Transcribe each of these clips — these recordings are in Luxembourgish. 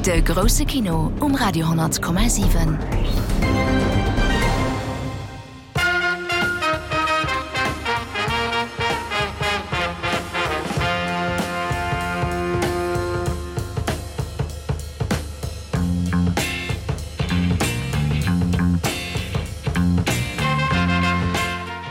De grousse Kino um Radio 10,7.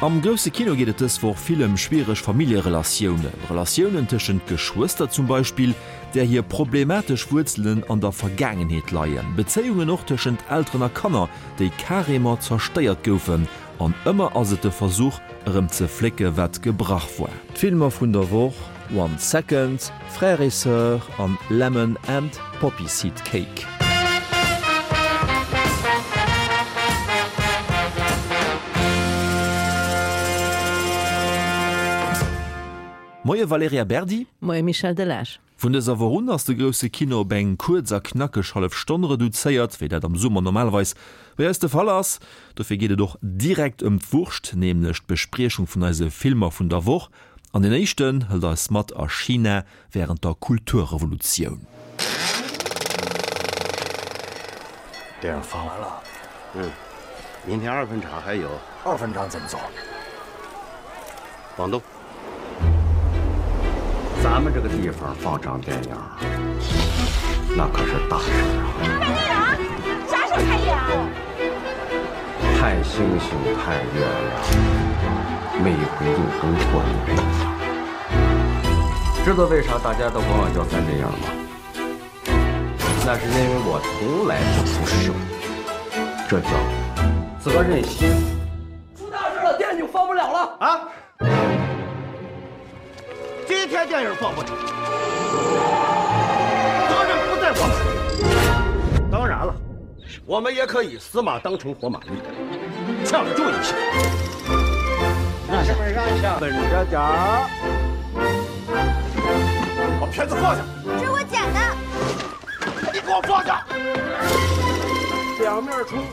Am grousse Kino geet et dës Woch vill ëm schwiereg Familljerelatiounen. Relatiounen tëschent Geschwëster zum Beispill, där hir problematesch Wuerzelen an der Vergaangenheet leien. Bezéiungen och tëschent Elteren a Kanner, déi carrément zerstéiert goufen. An ëmmer ass et de Versuch, erëm ze flécke wat gebrach war. D'Filmer vun der Woch, One Second, Frères et Sœurs an Lemon and Poppy Seed Cake. Moie Valerija Berdi. Moie Michel Delage. Vun dëser Woch un ass de grousse Kino op eng kuerz a knackeg hallef Stonn reduzéiert, wéi dat am Summer normalerweis bei eis de Fall ass. Dofir geet et och direkt ëm d'Wurscht, nämlech d'Bespriechung vun eise Filmer vun der Woch. An deen éischten hëlt eis mat a China wärend der Kulturrevolutioun. 看星星， 看月亮， 每回就跟过年一样。 知道为啥大家都管我叫三只羊吗？ 那是因为我从来不出手， 这叫责任心。 出大事了， 电影放不了了啊！ 今天电影放不成， 责任不在我们。 当然了， 我们也可以死马当成活马医， 抢救一下。 让下， 让下， 稳着点儿。 把片子放下。 这是我捡的。 你给我放下。 两面冲。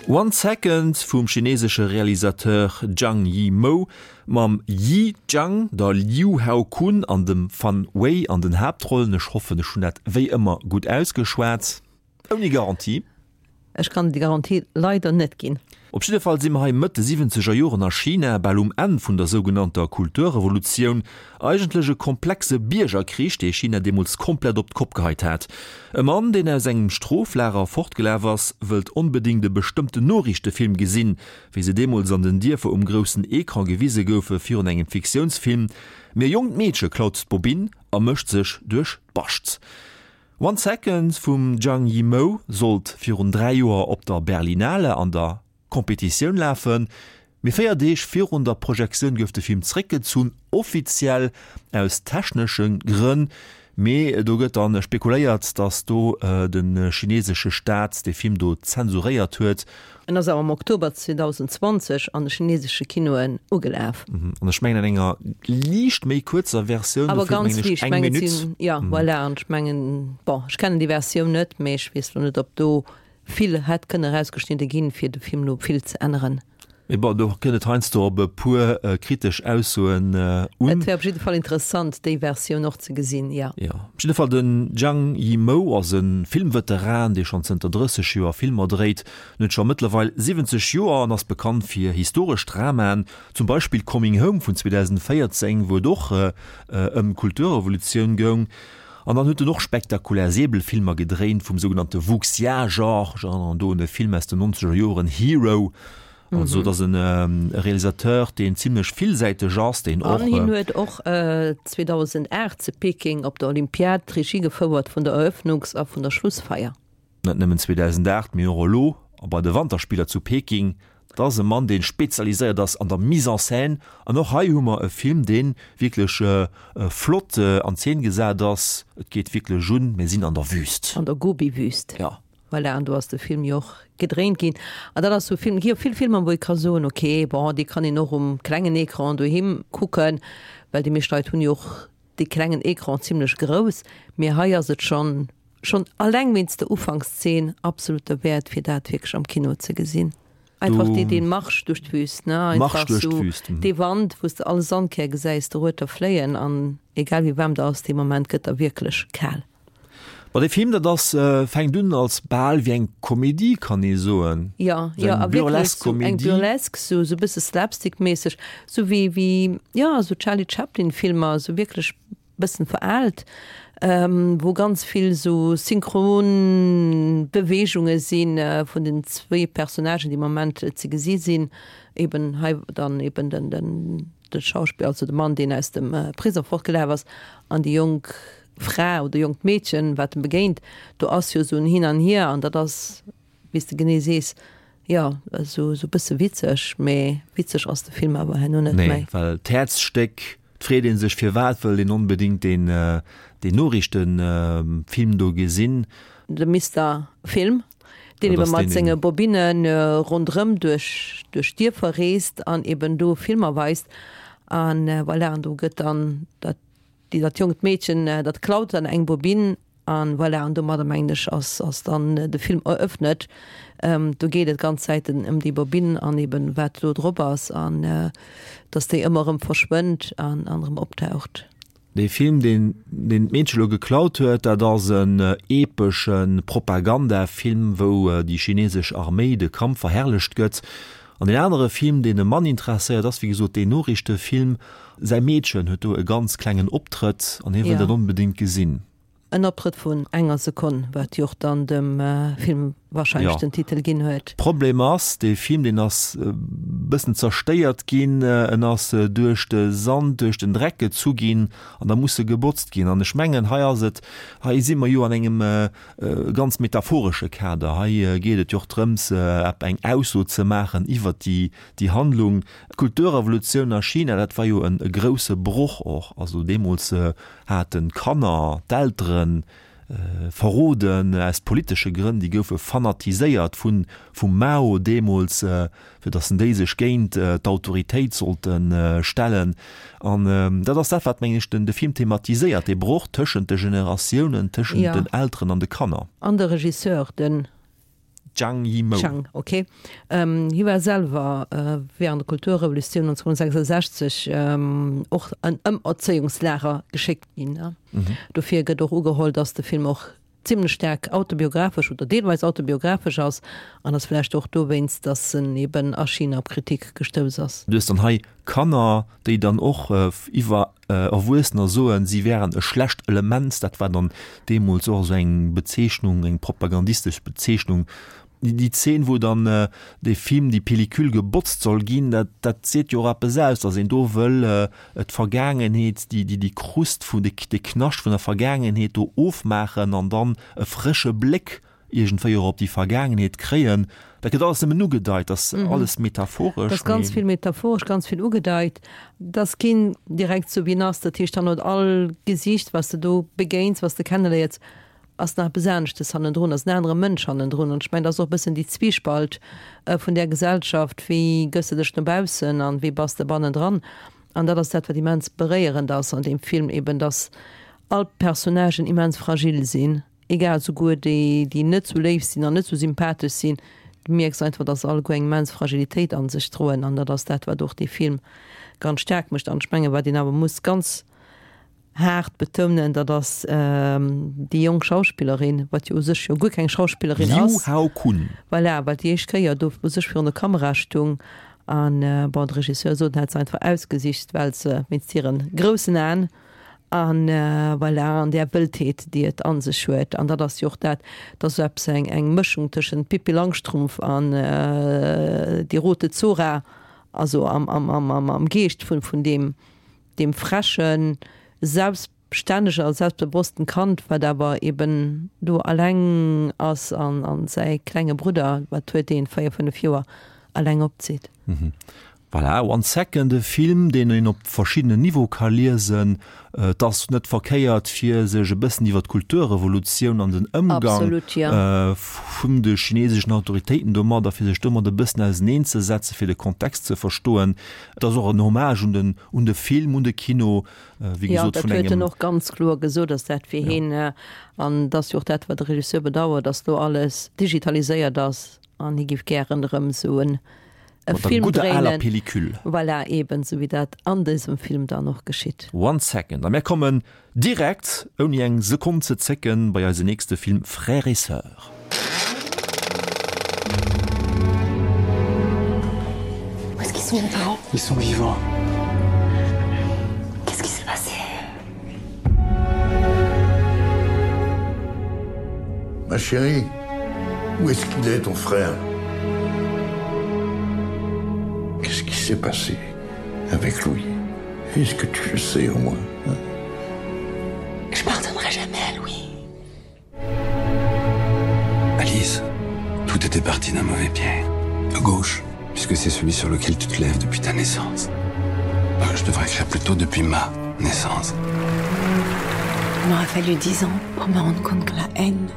One Second vum chinesesche Realisateur Zhang Yimou mam Yi Zhang, der Liu Haokun an dem Fan Wei an den Haaptrollen. Ech hoffen, ech hunn dat wéi ëmmer gutt ausgeschwat. Ouni Garantie. Ech kann déi Garantie leider net ginn. Op jidde Fall si mer hei Mëtt de siwwenzeger Joren a China, bal um Enn vun der sougenannter Kulturrevolutioun. Eigentlech e komplexe Biergerkrich, dee China deemools komplett op d'Kopp geheit hat. E Mann, deen aus engem Stroflager fortgelaf ass, wëllt onbedéngt e bestëmmten Noriichtefilm gesinn, wéi se deemools an den Dierfer um groussen Ecran gewise goufe virun engem Fiktiounsfilm. Mee e jonkt Meedche klaut d'Bobinn a mécht sech duerch d'Bascht. One Second vum Zhang Yimou sollt virun 3 Joer op der Berlinale an der Competitioun lafen, mee 4 Deeg virun der Projektioun gouf de Film zeréckgezunn, offiziell aus technesche Grënn. Mee do gëtt dann spekuléiert, datt do de chinesesche Staat de Film do zensuréiert huet. En ass awer am Oktober 2020 an de chinesesche Kinoen ugelaf. An ech mengen an enger liicht méi kuerzer Versioun, Awer dofir ganz mengen ech liicht, eng mengen et Minutt. sinn, jo voilà, an ech mengen, bon, ech kennen déi Versioun net, mee ech weess lo net, ob do vill hätt kënne erausgeschnidde ginn, fir de Film lo vill ze änneren. Mee bon, do kënnt et heiansdo op e puer kritesch Aussoen un. Et wär op jidde Fall interessant, déi Versioun och ze gesinn, jo. Jo, op jidde Fall, den Zhang Yimou ass e Filmveteran, dee schonn zënter 30 Joer Filmer dréit. En huet scho mëttlerweil 70 Joer an ass bekannt fir historesch Dramaen, zum Beispill Coming Home vun 2014, wou et och ëm d'Kulturrevolutioun goung. An dann huet en och spektakulär Säbelfilmer gedréint vum sougenannte Wuxia-Genre. Ech erënneren do un e Film aus den nonzeger Joren, Hero. Also et ass e Realisateur, deen zimlech villsäiteg ass, deen och. An hien huet och 2008 zu Peking op der Olympiad d'Regie gefouert vun der Eröffnungs a vun der Schlussfeier. Net nëmmen 2008, mee och elo a bei de Wanterspiller zu Peking. Dat ass e Mann, dee spezialiséiert ass an der Mise en scène. An och hei hu mer e Film, dee wierklech flott an Zeen gesat ass. Et geet wierklech un, mir sinn an der Wüst. An der Gobi-Wüst. Jo. Voilà, an do ass de Film jo och gedréint ginn. An dat ass sou e Film, et gi jo vill Filmer, wou ee ka soen, okay, bon, dee kann een och um klengen Ecran doheem kucken, well déi meescht Leit hunn jo och dee klengen Ecran zimlech grouss. Mee hei ass et schonn Schonn alleng wéinst der Ufankszeen absolut derwäert fir dat wierklech am Kino ze gesinn. Einfach dee dee Marsch duerch d'Wüst, ne, einfach sou dee Wand wou s de all Sandkär gesäis dorueter fléien an egal wéi waarm der ass, dee Moment gëtt der wierklech kal. Ma dee Film, dat ass, fänkt un als bal wéi eng Komedie, kann ee soen. Jo, jo, a wierklech sou eng Burlesque, sou e bësse slapstick-méisseg, sou wéi, wéi, jo, sou Charlie Chaplin-Filmer, sou wierklech bëssen veraalt, wou ganz vill sou synchron Beweegunge si vun den zwéi Personnagen, déi am Moment ze gesi sinn, eben hei dann eben den, den, de Schauspiller, also de Mann, deen aus dem Prisong fortgelaf ass, an déi jonk Fra oder jonkt Meedchen, wat en begéint. Do ass jo esou en Hin an Hier an dat ass, wéi s de genee sees, jo, esou e bësse witzeg, mee witzeg ass de Film awer herno net méi. Nee, well d'Häerzstéck, et freet ee sech, firwat wëll een onbedéngt deen, deen Noriichtefilm do gesinn? De Mister Film, deen ebe mat senge Bobinne ronderëm duerch, duerch d'Dierfer reest an eben do Filmer weist. An voilà, an do gëtt dann dat Déi dat jonkt Meedchen, dat klaut dann eng Bobinn an voilà, an domadder mengen ech ass ass dann de Film eröffnet. Do geet et ganz Zäiten ëm déi Bobinn an eben wat do drop ass an dass déi ëmmer erëm verschwënnt an an erëm optaucht. Dee Film, deen deen d'Meedche lo geklaut huet, dat ass en epesche Propagandafilm, wou déi chinesesch Arméi de Kampf verherrlecht gëtt. An deen anere Film, deen e Mann interesséiert, ass wéi gesot deen Noriichtefilm. Säi Meedchen huet do e ganz klengen Optrëtt an hie wëll dat onbedéngt gesinn. En Optrëtt vun enger Sekonn, wat jo och dann dem Film warscheinlech den Titel ginn huet. Problem ass, dee Film, deen ass e bëssen zerstéiert ginn. En ass duerch de Sand, duerch den Dreck gezu ginn an da muss e gebotzt ginn. An ech mengen, hei ass et, hei si mer jo an engem ganz metaphoresche Kader. Hei geet et jo och drëms, eng Ausso ze maachen iwwert déi Handlung. D'Kulturrevolutioun a China, dat war jo e grousse Broch och. Also deemools haten d'Kanner d'Eltere verroden aus politesche Grënn. Déi goufe fanatiséiert vum Mao deemools. fir datt en déi sech géint d'Autoritéit sollte stellen. An dat ass dat, wat, mengen ech, den de Film thematiséiert, dee Broch tëschent de Generatiounen, tëschent den Elteren an de Kanner. An de Regisseur, den. Zhang Yimou. Zhang, ok. Hie war selwer während der Kulturrevolutioun 1966 och an Ëmerzéiungslager geschéckt ginn. Dofir gëtt och ugeholl, datt de Film och zimlech staark autobiographesch oder deelweis autobiographesch ass an ass vläicht och dowéinst, dass en eben a China op Kritik gestouss ass. Du hues dann hei Kanner, déi dann och iwwer Erwuessener soen, si wären e schlecht Element. Dat war dann deemools och esou eng Bezeechnung, eng propagandistesch Bezeechnung. Déi Zeen, wou dann dee Film, déi Pellicule gebotzt soll ginn, dat, dat seet jo och eppes aus, datt een do wëll d'Vergaangenheet, déi, déi, déi Krust vun, dee, dee Knascht vun der Vergaangenheet do ofmaachen an dann e frësche Bléck iergendwéi och op déi Vergaangenheet kréien. Dat gëtt alles nëmmen ugedeit, dat ass alles metaphoresch. Dat ass ganz vill metaphoresch, ganz vill ugedeit. Dat ass keen direkt sou wéi en ass. Dat heescht dann huet all Gesiicht, wat s de do begéins, wat s de kenneléiers, ass nach eppes aneschtes hannendrun, ass en anere Mënsch hannendrun. An ech mengen, dat ass och e bëssen déi Zwiespalt vun där Gesellschaft, wéi gëss de dech no baussen an wéi bass de bannendran. An dat ass dat, wat immens beréierend ass an deem Film, eben dass all d'Personnagen immens fragil sinn, egal, souguer déi, déi net sou léif sinn an net sou sympathesch sinn, du mierks einfach, dass se alleguer eng immens Fragilitéit a sech droen. An dat ass dat, wat och dee Film ganz staark mécht. An ech mengen, wat een awer muss ganz haart betounen, dat ass déi jonk Schauspillerin, wat jo u sech jo guer keng Schauspillerin Liu ass. Hao Kun. Voilà, wat déi éischt Kéier do u sech virun der Kamera stung. An bon, de Regisseur sot, en hätt se einfach ausgesicht, well se wéinst hire groussen Aen an voilà, an där Wëldheet, déi et a sech huet. An dat ass jo och dat, dat ass esou eppes, eng, eng Mëschung tëschent Pippi Langstrumpf an Die rote Zora, also am, am, am, am Geescht vun, vun deem, deem frechen, selbststännegen a selbstbewossten Kand, wat awer eben do alleng ass an an säi klenge Brudder, wat huet deen, 4, 5 Joer, alleng opzitt. Voilà, One Second, e Film, deen een op verschiddenen Niveau ka liesen. Et ass net verkéiert, fir sech e bëssen iwwer d'Kulturrevolutioun an den Ëmgang vun de chineseschen Autoritéiten domadder, fir sech domat e bëssen auseneenzesetzen, fir de Kontext ze verstoen. Et ass och en Hommage un den, un de Film, un de Kino, wéi gesot, vun engem. Jo, dat huet en och ganz kloer gesot, dass dat fir hien, an et ass jo och dat, wat de Regisseur bedauert, dass elo alles digitaliséiert ass an hie géif gären erëm esou en. E Mat der Film gudder aler dréinen. Pellicule. Voilà, eben sou wéi dat an dësem Film dann och geschitt. One second, a mär kommen direkt, ouni eng Sekonn ze zécken, bei eise nächste Film Frères et sœurs. Où est-ce qu'ils sont mes parents? Ils sont vivants. Qu'est-ce qui s'est passé? Ma chérie, où est-ce qu'il est ton frère? Qu'est-ce qui s'est passé avec Louis? Est-ce que tu le sais au moins? Hein? Je pardonnerai jamais à Louis. Alice, tout était parti d'un mauvais pied. À gauche, puisque c'est celui sur lequel tu te lèves depuis ta naissance. Euh, je devrais écrire plutôt depuis ma naissance. Il m'aura fallu dix ans pour me rendre compte que la haine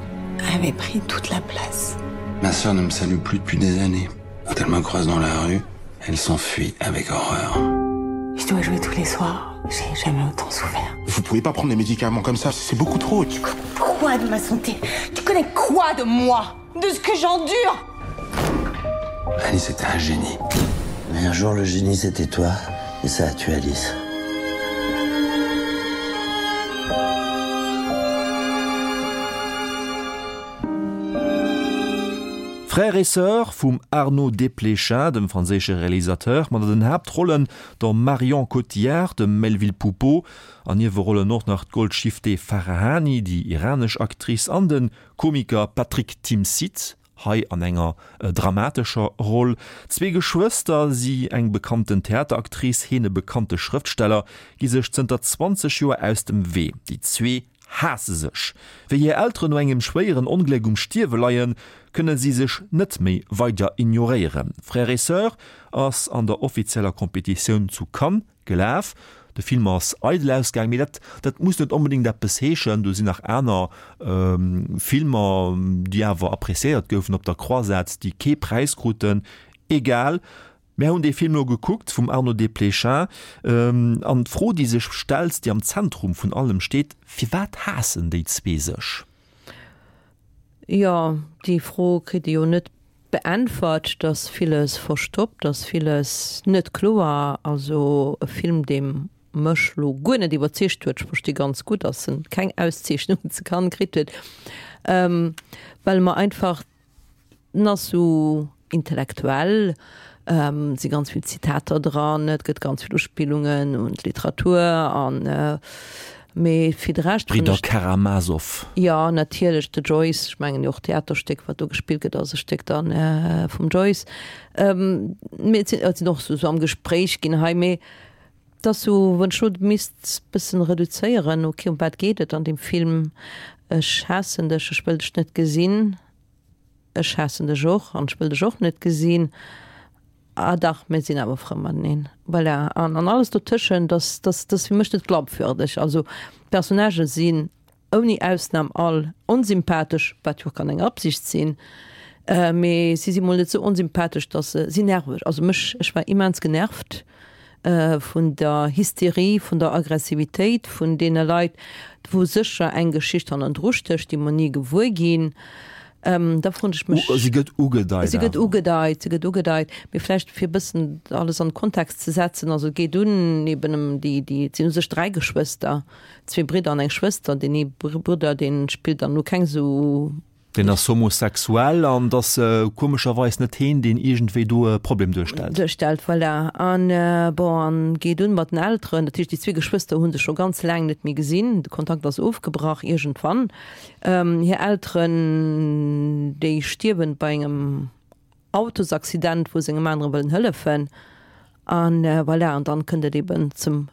avait pris toute la place. Ma sœur ne me salue plus depuis des années. Quand elle me croise dans la rue, elle s'enfuit avec horreur. Je dois jouer tous les soirs. J'ai jamais autant souffert. Vous pouvez pas prendre des médicaments comme ça, c'est beaucoup trop. Tu connais quoi de ma santé? Tu connais quoi de moi? De ce que j'endure? Alice était un génie. Mais un jour le génie c'était toi et ça a tué Alice. Frères et sœurs vum Arnaud Desplechin, dem franséische Realisateur, mat an den Haaptrollen der Marion Cotillard, dem Melvil Poupaud, an Niewerollen och nach d'Golshifteh Farahani, déi iranesch Actrice, an de Komiker Patrick Timsit, hei an enger dramatescher Roll. Zwee Geschwëster, si eng bekannten Theateractrice, heen e bekannte Schrëftsteller, gi sech zënter 20 Joer aus dem Wee. Déi zwee haasse sech. Wéi hir Elteren no engem schwéieren Ongléck um Stierwe leien, kënne si sech net méi weider ignoréieren. Frères et sœurs ass an der offizieller Competitioun zu Cannes gelaf. De Film ass eidel ausgaang, mee dat dat muss net onbedéngt eppes heeschen. Do sinn nach aner Filmer, déi awer appréciéiert goufen op der Croisette, déi kee Präis kruten. Egal. Mär hunn dee Film elo gekuckt vum Arnaud Desplechin an d'Fro, déi sech stellt, déi am Zentrum vun allem steet, Firwat haassen déi zwee sech? Jo, déi Fro kritt ee jo net beäntwert. Et ass villes verstoppt, ass villes net kloer. Also e Film, dee mech lo guer net iwwerzeegt huet. Ech versti ganz gutt, datt en keng Auszeechnung ze Cannes kritt huet, well e mer einfach En ass sou intellektuell, et si ganz vill Zitater dran, et gëtt ganz vill Uspillungen un d'Literatur an mee fir de Rescht hunn D'Bridder Karamazov. Jo, natierlech, de Joyce, ech mengen jo och d'Theaterstéck, wat do gespillt gëtt, ass e Stéck dann vum Joyce. Mee et sinn, et sinn och sou am Gespréich ginn hei, mee et ass sou, wann ech lo misst bëssen reduzéieren, ok, ëm wat geet et an deem Film? Ech haassen dech, ech wëll dech net gesinn. Ech haassen dech och an ech wëll dech och net gesinn. Ah dach, mir sinn awer frou mateneen. Voilà. An, an alles dotëschent, das, das, das ass fir mech net glaubwürdeg. Also d'Personnagë sinn ouni Ausnam all onsympathesch, wat jo och kann eng Absicht sinn, mee si si mol net sou onsympathesch, dass se si nerveg. Also mech, ech war immens genervt vun der Hysterie, vun der Aggressivitéit vun deene Leit, wou sécher eng Geschicht hannendru stécht, déi mer ni gewuer ginn. Da froen ech mech. Si gëtt ugedeit. Si gëtt ugedeit, si gëtt ugedeit. Mee vläicht fir e bëssen alles an de Kontext ze setzen, also et geet un eben ëm déi, déi, et sinn u sech 3 Geschwëster, zwee Bridder an eng Schwëster. Deen ee Brudder, dee spillt dann elo keng esou Deen ass homosexuell an et ass komescherweis net heen, deen iergendwéi do e Problem duerstellt. Duerstellt, voilà. An bon, an geet un mat den Elteren. Dat heescht, déi zwee Geschwëster hu sech scho ganz laang net méi gesinn. De Kontakt ass ofgebrach iergendwann. Hir Elteren, déi stierwen bei engem Autosaccident, wou se engem anere wëllen hëllefen. An voilà, an dann kënnt et eben zum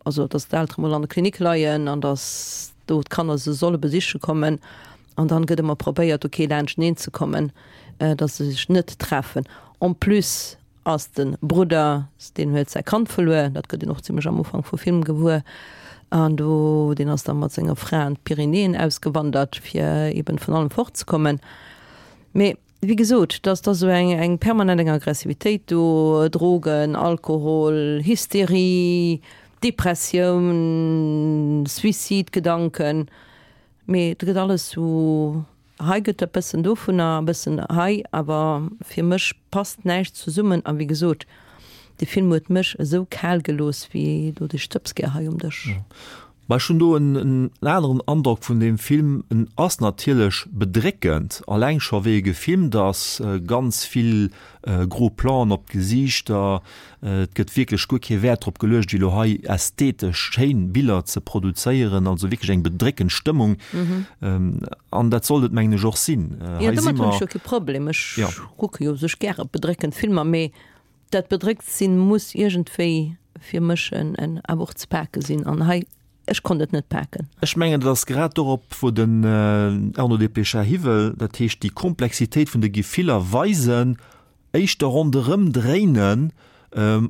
also dass d'Eltere mol an der Klinik leien an dass do d'Kanner se solle besiche kommen an dann gëtt ëmmer probéiert ok laanschteneen ze kommen, dass se sech net treffen. En plus ass de Brudder, deen huet säi Kand verluer, dat gëtt een och zimlech am Ufank vum Film gewuer an do deen ass da mat senger Fra an d'Pyrenäen ausgewandert fir eben vun allem fortzekommen. Mee Wéi gesot, dass da sou eng eng permanent eng Aggressivitéit do, Drogen, Alkohol, Hysterie, Depressioun, Suicidegedanken, mee et gëtt alles sou. Hei gëtt e bëssen dovunner, e bëssen hei, awer fir mech passt näischt zesummen. A wéi gesot, de Film huet mech esou kal gelooss wéi do de Stëbsgär hei um Dësch. Mä ech hunn do en aneren Androck vun deem Film. En ass natierlech bedréckend, alleng scho wéi e gefilmt ass, ganz vill gros Planen op d'Gesiichter, et gëtt wierklech guer kee Wäert drop geluecht, elo hei ästhetesch schéin Biller ze produzéieren, also wierklech eng bedréckend Stëmmung. An dat sollt et mengen ech och sinn. Jo, domat hunn ech jo kee Problem, ech kucke jo u sech gäre bedréckend Filmer, mee Dat bedréckt sinn muss iergendwéi fir mech en awer och ze pake sinn an hei, ech konnt et net paken. Ech mengen, dat ass grad dorop, wou den Arnaud Desplechin hiwëll, dat heescht déi Komplexitéit vun de Gefiller weisen, éischter ronderëm dréinen,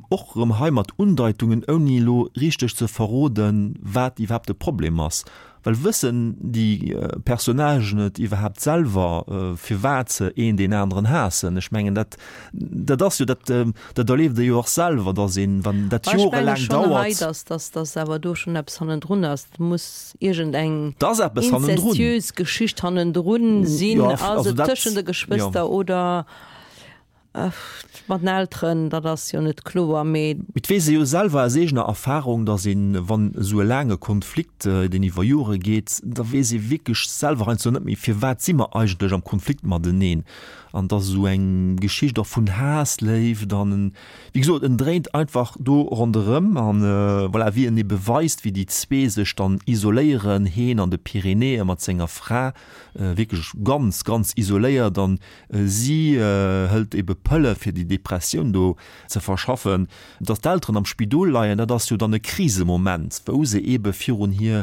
och erëm hei mat Undeitungen, ouni elo richteg ze verroden, wat iwwerhaapt de Problem ass. Well wëssen déi Personnagen et iwwerhaapt selwer, firwat se een deen aneren haassen? Ech mengen, dat, dat ass jo, dat, dat erlieft ee jo och selwer, datt een, wann dat Ech menge jorelaang schonn hei, dauert. datt, datt, datt awer do schonn eppes hannendrun ass. Et muss iergend eng Et ass eppes hannendrun. inzestiös Geschicht hannendrun sinn. Jo, Ass also et dat, tëschent de jo. Geschwëster oder Mat den Elteren, dat ass jo net kloer, mee. Et weess ee jo selwer aus eegener Erfahrung, datt een, wann esou e laange Konflikt, deen iwwer Jore geet, da weess ee wierklech selwer heiansdo net méi, firwat si mer eigentlech am Konflikt mateneen. An et ass esou eng Geschicht och vun Haass, Léift an en, wéi gesot, en dréint einfach do ronderëm. An voilà, wéi en ebe weist, wéi déi zwee sech dann isoléieren, heen an de Pyrenäe mat senger Fra, wierklech ganz, ganz isoléiert an Si hëlt ebe Pëlle fir déi Depressioun do ze verschaffen. Datt d'Elteren am Spidol leien, dat ass jo dann e Krisemoment, wou se ebe virun hir,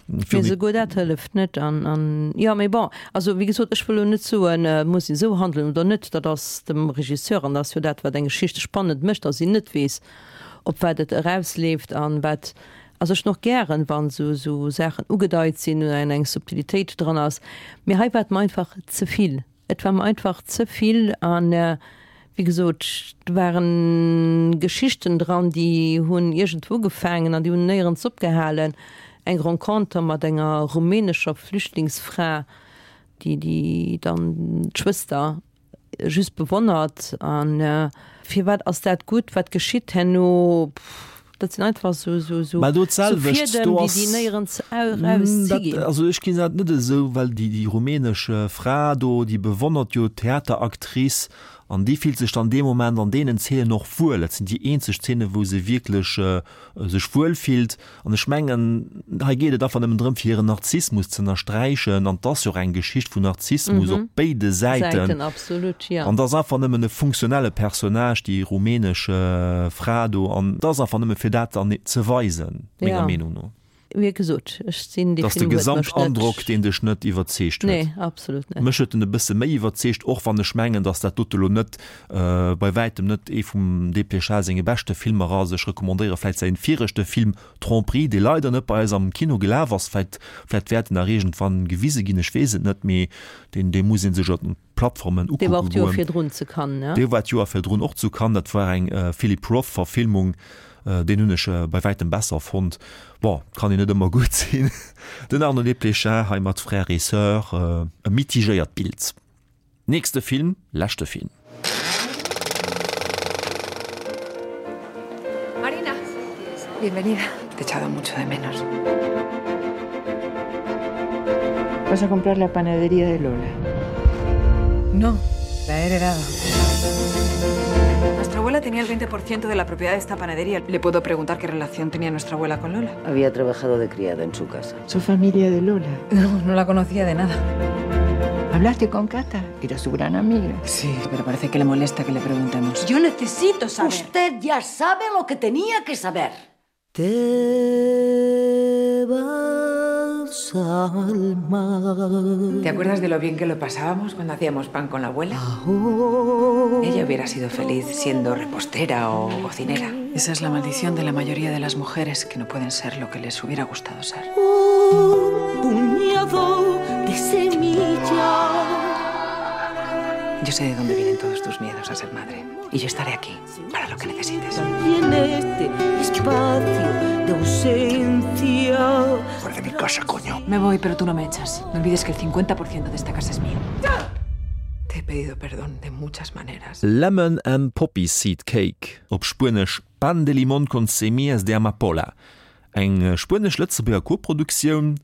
Mee virun. souguer dat hëlleft net. An, an, jo, mee bon, also wéi gesot, ech wëll elo net soen, et muss een esou handelen oder net. Dat ass dem Regisseur an dat ass jo dat, wat eng Geschicht spannend mécht, datt een net weess, op wat et erausleeft an wat. Also ech hunn och gären, wann esou, esou Saachen ugedeit sinn oder eng Subtilitéit dran ass. Mee hei war et mer einfach ze vill. Et war mer einfach ze vill an, wéi gesot, do waren Geschichten dran, déi hunn iergendwou ugefaangen an déi hunn néierens opgehalen. Eng Renconter mat enger rumänescher Flüchtlingsfra, déi, déi dann d'Schwëster just bewonnert an firwat ass dat gutt, wat geschitt herno, dat sinn einfach sou sou sou Mä do d'selwecht, Fiedem, do déi ass déi néierens erauszi dat, ginn. also ech ginn dat net esou, well déi déi rumänesch Fra do, déi bewonnert jo d'Theateractrice an déi fillt sech dann dee Moment an deenen Zeenen och wuel. Dat sinn déi eenzeg Zeenen, wou se wierklech sech wuel fillt. An ech mengen, hei geet et einfach nëmmen drëm, fir hiren Narzissmus ze ënnersträichen. An 't ass jo och eng Geschicht vun Narzissmus op béide Säiten. Säiten, absolut, jo. An 't ass einfach nëmmen e funktionelle Personnage, déi rumänesch Fra do. An 't ass einfach nëmme fir dat dann ze weisen, menger Meenung no. Wéi gesot, ech sinn, dee 't ass de Film huet mech net. Gesamtandrock, deen dech net iwwerzeegt huet. Nee, absolut net. Mech huet en e bësse méi iwwerzeegt, och wann ech mengen, datt dat dote lo net Bei wäitem net ee vum Desplechin senge beschte Filmer ass. Ech recommandéiere vläit säin viregte Film Tromperie, dee leider net bei eis am Kino gelaf ass. Vläit, vläit wäert en nach iergendwann gewise ginn, ech weess et net, mee deen, dee muss ee sech op den Plattformen Dee war ukucke och d'Joer goen. virdrun zu Cannes, ne? Dee war d'Joer virdrun och zu Cannes, dat war eng Philip Roth Verfilmung, deen hunn ech bei wäitem besser fonnt. Bon, kann een net ëmmer gutt sinn. Den Arnaud Desplechin hei mat Frères et Sœurs, e mitigéiert Bild. Nächste Film, leschte Film. Marina, bienvenida. Te he echado mucho de menos. Vas a comprar la panadería de Lola. No, la he heredado. Nuestra abuela tenía el 20% de la propiedad de esta panadería. Le puedo preguntar qué relación tenía nuestra abuela con Lola. Había trabajado de criada en su casa. ¿Su familia de Lola? No, no la conocía de nada. ¿Hablaste con Cata? Era su gran amiga. Sí, pero parece que le molesta que le preguntemos. Yo necesito saber. Usted ya sabe lo que tenía que saber. Te vas al mar. ¿Te acuerdas de lo bien que lo pasábamos cuando hacíamos pan con la abuela? Ella hubiera sido feliz siendo repostera o cocinera. Esa es la maldición de la mayoría de las mujeres que no pueden ser lo que les hubiera gustado ser. Un puñado de semilla. Yo. Yo sé de dónde vienen todos tus miedos a ser madre y yo estaré aquí para lo que necesites. Y en este espacio de ausencia. Fuera de mi casa, coño. Me voy, pero tú no me echas. No olvides que el 50% de esta casa es mío. Te he pedido perdón de muchas maneras. Lemon and Poppy Seed Cake, op Spuenesch Pan de limón con semillas de amapola, eng spuenesch-lëtzebuerger Koproduktioun,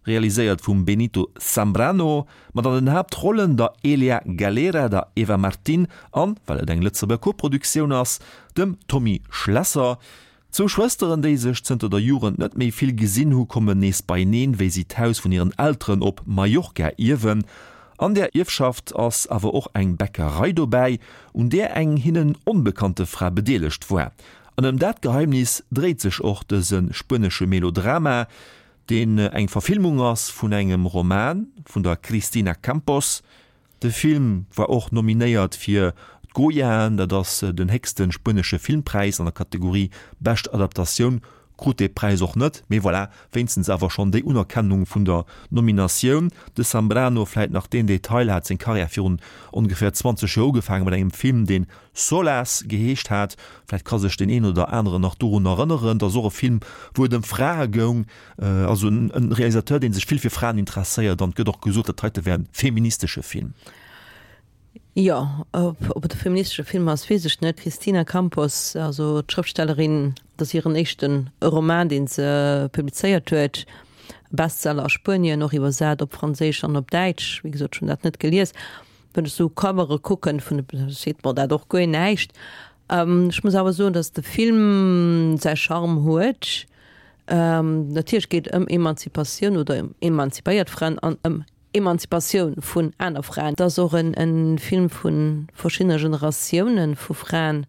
realiséiert vum Benito Zambrano, mat an den Haaptrollen der Elia Galera, der Eva Martín an, well et eng Lëtzebuerger Koproduktioun ass, dem Tommy Schlesser. Zwou Schwësteren, déi sech zënter der Jugend net méi vill gesinn hu, kommen nees beieneen, wéi si d'Haus vun hiren Elteren op Mallorca ierwen. An där Ierfschaft ass awer och eng Bäckerei dobäi, un där eng hinnen onbekannte Fra bedeelegt war. An ëm dat Geheimnis dréit sech och dëse spuenesche Melodrama, deen eng Verfilmung ass vun engem Roman vun der Cristina Campos. De Film war och nominéiert fir d'Goyaen, dat ass den héchste spuenesche Filmpräis an der Kategorie Bescht Adaptatioun, krut dee Präis och net, mee voilà, wéinstens awer schonn déi Unerkennung vun der Nominatioun. De Zambrano, vläit nach deen Detail, hat seng Karriär virun ongeféier 20 Joer ugefaange mat engem Film, deen Solas geheescht hat. Vläit ka sech deen een oder aneren nach dorun erënneren. Dat ass och e Film, wou et ëm Frae goung. Also en Realisateur, dee sech vill fir Fraen interesséiert. An et gëtt och gesot, dat heite wär e feministesche Film. Jo, ob et e feministesche Film ass, weess ech net. D'Cristina Campos, also d'Schrëftstellerin, dat ass hiren éischte Roman, dee se publizéiert huet. Bestseller a Spuenien, och iwwersat op Franséisch an op Däitsch. Wéi gesot, ech hunn dat net gelies. Wann ech sou Covere kucken vun de, seet mer dat och guer näischt. Ech muss awer soen, datt de Film säi Charme huet. Natierlech geet et ëm Emanzipatioun oder ëm emanzipéiert Fraen an ëm Emanzipatioun vun aner Fraen. Et ass och en Film vu verschiddene Generatiounen vu Fraen.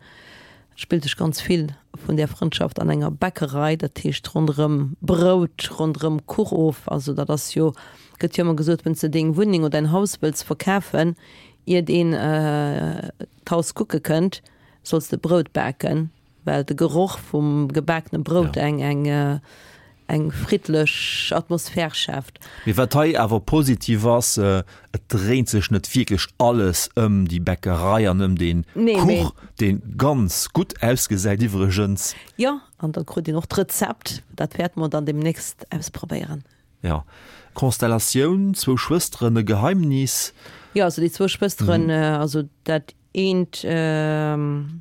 Et spillt sech ganz vill vun där Frëndschaft an enger Bäckerei, dat heescht ronderëm Brout, ronderëm Kuch of. Also dat ass jo, gëtt jo ëmmer gesot, wann s de deng Wunneng oder däin Haus wëlls verkafen, iert een d'Haus kucke kënnt, solls de Brout baken. Well de Geroch vum gebakene Brout eng eng eng friddlech Atmosphär schaaft. Mee wat hei awer positiv ass, et dréint sech net wierklech alles ëm déi Bäckerei an ëm dee Kuch, dee ganz gutt ausgesäit iwwregens. Jo, an da krut een och d'Rezept. Dat wäerte mer dann deemnächst ausprobéieren. Jo, Konstellatioun, zwou Schwësteren, e Geheimnis. Jo, also déi zwou Schwësteren, also dat Eent.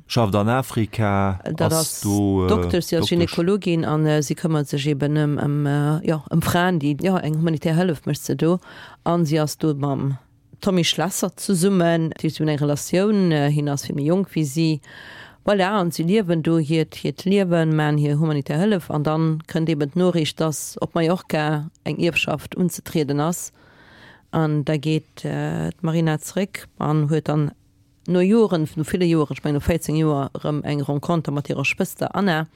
Schafft an Afrika, Dat ass do Doktesch, si ass Gynekologin an si këmmert sech eben ëm, ëm, jo, ëm Fraen, déi, jo, eng humanitär Hëllef mécht se do. An si ass do mam Tommy Schlesser zesummen. Dat heescht, si hunn eng Relatioun, hien ass vill méi jonk wéi si. Voilà, an si liewen do hiert, hiert Liewen, maachen hir humanitär Hëllef. An dann kënnt eben d'Noriicht, dass op Mallorca eng Ierfschaft unzetrieden ass. An da geet d'Marina zeréck an huet dann no Joren, no ville Joren, ech mengen no 14 Joer, erëm eng Renconter mat hirer Schwëster Anna.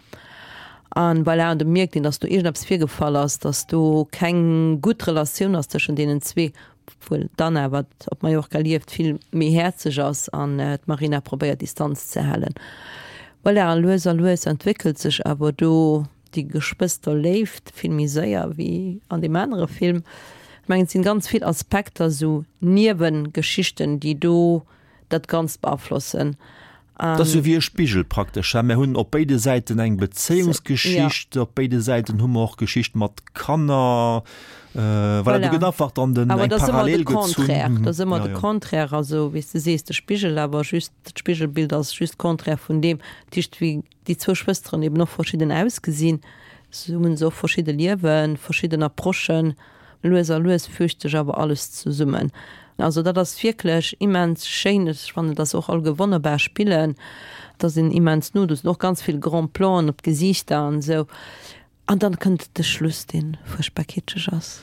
An voilà, an do mierkt een, datt do iergendeppes virgefall ass, datt do keng gutt Relatioun ass tëschent deenen zwee, obwuel d'Anna, wat op Mallorca lieft, vill méi häerzeg ass an d'Marina probéiert Distanz ze halen. Voilà, a lues a lues entwéckelt sech awer do Déi Geschwësterléift vill méi séier wéi an deem anere Film. Ech mengen, et sinn ganz vill Aspekter, esou Niewengeschichten, déi do dat Ganzt beaflossen. Et ass jo wéi e Spigel praktesch, he? Mir hunn op béide Säiten eng Bezéiungsgeschicht, op béide Säiten hu mer och Geschicht mat Kanner. Voilà, do gëtt einfach dann den, eng Parallel gezunn. Dat ass ëmmer de Contraire, also wéi s de sees, de Spigel, awer just d'Spigelbild ass just Contraire vun deem. Dat heescht, wéi déi zwou Schwësteren eben och verschidden ausgesinn, sou hunn se och verschidde Liewen, verschidden Approchen. Lues a lues fügt sech awer alles zesummen. Also dat ass wierklech immens schéin. Ech fannen, dass och alleguer wonnerbar spillen. Et ass een immens no, do sinn och ganz vill Grand Planen op d'Gesiichter an esou. An dann kënnt de Schluss, dee fuerchtbar kitscheg ass.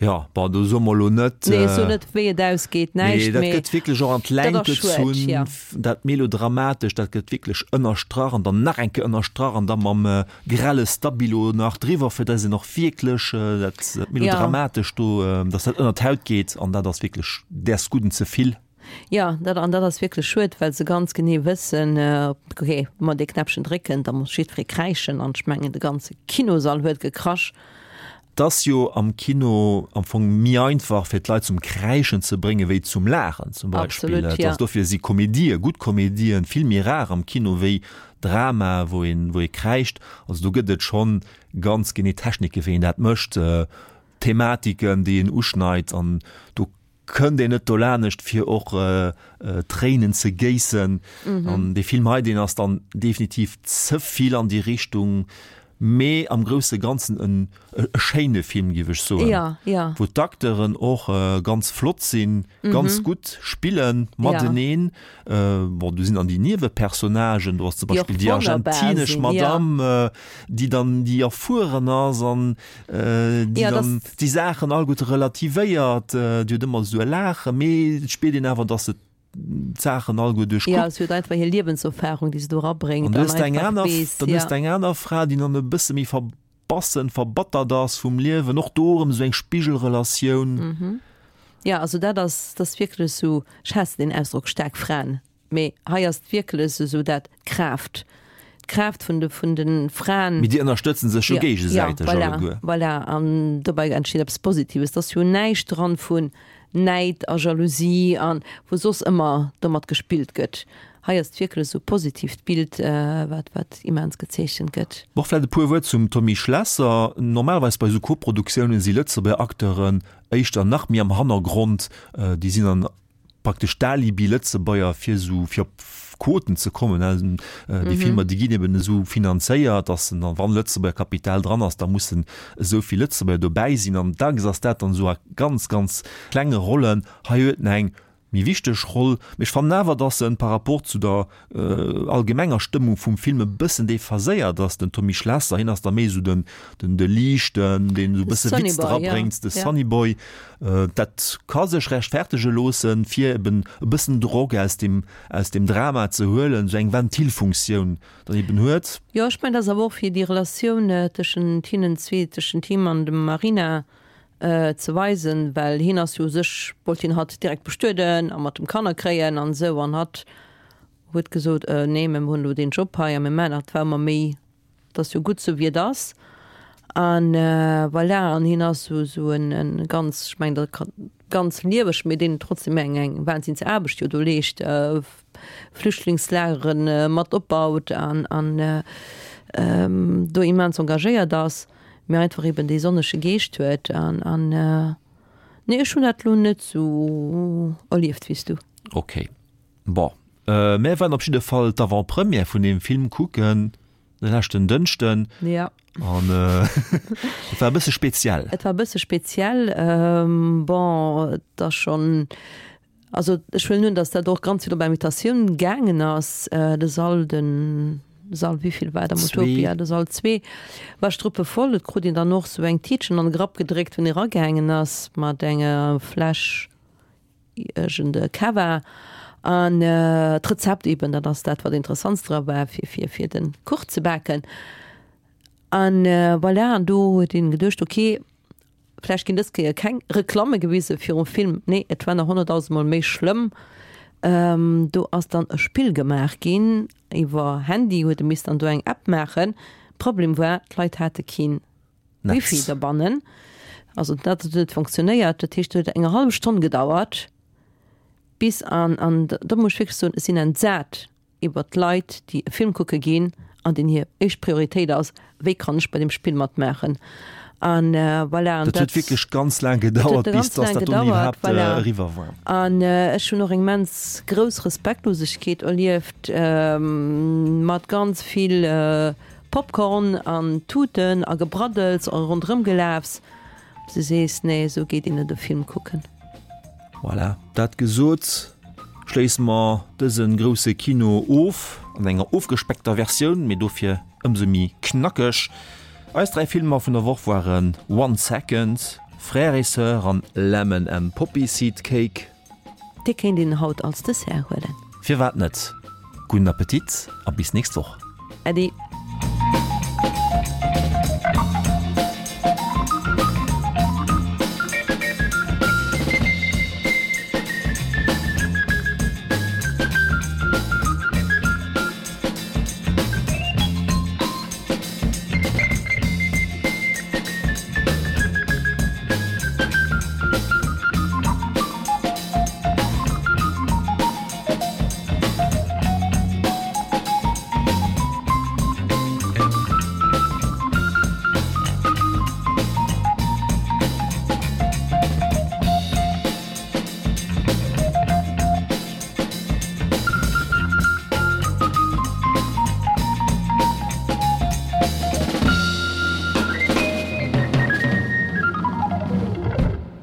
Jo, bon, do soe mer elo net. Nee, ech soen net, wéi et ausgeet, näischt, mee. Nee, dat gëtt wierklech och an d'Längt gezunn, dat Melodramatescht, dat gëtt wierklech ënnerstrach an dann nach eng Kéier ënnerstrach an da mam grelle Stabilo nach driwwer, fir dass een och wierklech dat Melodramatescht do, dass dat ënner d'Haut geet an dat ass wierklech däers Gudden ze vill. Jo, dat, an dat ass wierklech schued, well se ganz genee wëssen, ok, wa mer dee Knäppchen drécken, da muss jiddweree kräischen an ech mengen, de ganze Kinosall huet gekrasch. Et ass jo am Kino am Fong méi einfach fir d'Leit zum Kräischen ze bréngen wéi zum Laachen zum Beispill. Absolut, Et ja. ass dofir si Komedië, gutt Komedien, vill méi rar am Kino wéi Drama wou een wou ee kräischt. Also do gëtt et schonn ganz genee Technike wéi een dat mécht, Thematiken déi een uschneit an do kënnt een net dolanescht fir och Tréinen ze géissen. An dee Film hei deen ass dann definitiv ze vill an déi Richtung, mee am grousse Ganzen en e schéine Film géif ech soen, Ja, ja. wou d'Acteuren och ganz flott sinn, ganz gutt spillen mateneen. Bon, do sinn dann déi Niewepersonnagen, do ass zum Déi och Beispill déi wonnerbar argentinesch sinn, ja. Madame, déi dann déi erfueren ass an déi Ja, dann das déi Saachen alleguerte relativéiert, déi huet ëmmer esou e Laachen, mee et spiert een awer, datt se d'Saachen alleguer Ja, duerchkuckt. si huet einfach hir Liewenserfahrung, déi se do An erabréngt du an hues eng einfach aner, weess, dann hues ja. de eng aner Fra, déi dann e bësse méi verbassen, verbattert ass vum Liewen, och do erëm esou eng Spigelrelatioun. Ja, also dat ass, dat ass wierklech esou, ech haassen deen Ausdrock staark Fraen, Mee hei ass et wierklech esou dat d'Kraaft, d'Kraaft vun de, vun de Fraen. Mee déi ënnerstëtzen sech jo géigesäiteg ja, alleguer. Voilà, voilà. An dobäi entsteet eppes Positives. Et ass jo näischt dran vun Näid a Jalousie an wou soss ëmmer domat gespillt gëtt. Hei ass et wierklech esou positiivt Bild, wat, wat immens gezeechent gëtt. Och vläicht e puer Wuert zum Tommy Schlesser. Normalerweis bei esou Koproduktiounen si Lëtzebuerger Acteuren éischter nach méi am Hannergrond. Déi sinn an praktesch d'Alibi-Lëtzebuerger fir esou fir op Quoten ze kommen. Déi Filmer déi ginn eben esou finanzéiert, datt en dann, wann Lëtzebuerger Kapital dran ass, da mussen esou vill Lëtzebuerger dobäi sinn. An dacks ass dat dann esou a ganz, ganz klenge Rollen. Hei huet en eng méi wichteg Roll, mee ech fannen awer, datt en par rapport zu der allgemenger Stëmmung vum Film e bëssen déphaséiert ass, den Tommy Schlesser. Hien ass da méi esou den, den, de Liichten, deen esou e bësse Witz drabréngt, de Sunny Boy. Dat ka sech rechtfertege loossen, fir eben e bëssen Drock aus dem, aus dem Drama ze huelen, esou eng Ventilfunktioun dann eben huet. Jo, ech mengen, dat ass awer och fir déi Relatioun tëschent hinnen zwee, tëschent him an dem Marina ze weisen, well hien ass jo u sech, wollt hien hatt direkt bestueden a mat dem Kanner kréien an esou, an hatt huet gesot, Nee, mä mir hunn elo deen Job hei a mir maachen dat, war ëmmer méi, et ass jo gutt sou wéi et ass. An voilà, an hien ass sou sou en en ganz, ech mengen dat ka ganz lieweg, mee deen trotzdem eng eng Wahnsinnsaarbecht jo do leescht, Flüchtlingslagere mat opbaut an an do immens engagéiert ass, mee einfach eben dee sonnege Geescht huet an an nee, ech hunn dat elo net sou erlieft wéi s du. Ok. Bon, mär waren op jidde Fall d'Avant-Première vun deem Film kucken de leschten Dënschden. Ja. An et war e bësse speziell. Et war e bësse speziell. Bon, et ass schonn, also ech huelen un, datt dat och ganz vill op Invitatioun gaangen ass. De Sall, de Sall wéivill war et am Utopia? De Sall 2 war struppevoll. Et krut een dann och sou eng Tiitchen an de Grapp gedréckt, wann ee ragaangen ass mat enger Fläsch. Iergend Cava an d'Rezept eben, dat ass dat wat interessantst dra war fir fir fir den Kuch ze baken. An voilà, an do huet een geduecht, ok, vläicht ginn dës Kéier keng Reklamme gewise virum Film. Nee, et war nach honnertdausendmol méi schlëmm. Do ass dann e Spill gemaach ginn iwwer Handy, huet e misst dann do eng App maachen. Problem war, d'Leit hate keen Wifi derbannen. Also dat huet net funktionéiert. Dat heescht, et huet eng hallef Stonn gedauert, bis an, an do muss ech wierklech soen, ech sinn entsat iwwert d'Leit, déi e Film kucke ginn an deenen hir éischt Prioritéit ass, wéi kann ech bei deem Spill matmaachen. An voilà, an Dat huet dat wierklech ganz laang dat huet gedauert, bis ganz dass laang dat dunn gedauert, iwwerhaapt voilà. eriwwer war. An ech hunn och eng immens grouss Respektlosegkeet erlieft, mat ganz vill Popcorn an Tuten a Gebraddels a ronderëmgelafs, bis du sees, nee, esou geet een net e Film kucken. Voilà, dat gesot, schléisse mer dëse grousse Kino of, an enger ofgespeckter Versioun, mee dofir ëmsou méi knackeg. Eis 3 Filmer vun der Woch waren One Second, Frères et Sœurs an Lemon and Poppy Seed Cake. Dee kéint een haut als Dessert huelen. Firwat net? Gudden Appetit a bis nächst Woch. Äddi.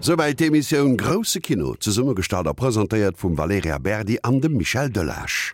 Souwäit d'Emissioun Grousse Kino, zesummegestallt a presentéiert vum Valerija Berdi an dem Michel Delage.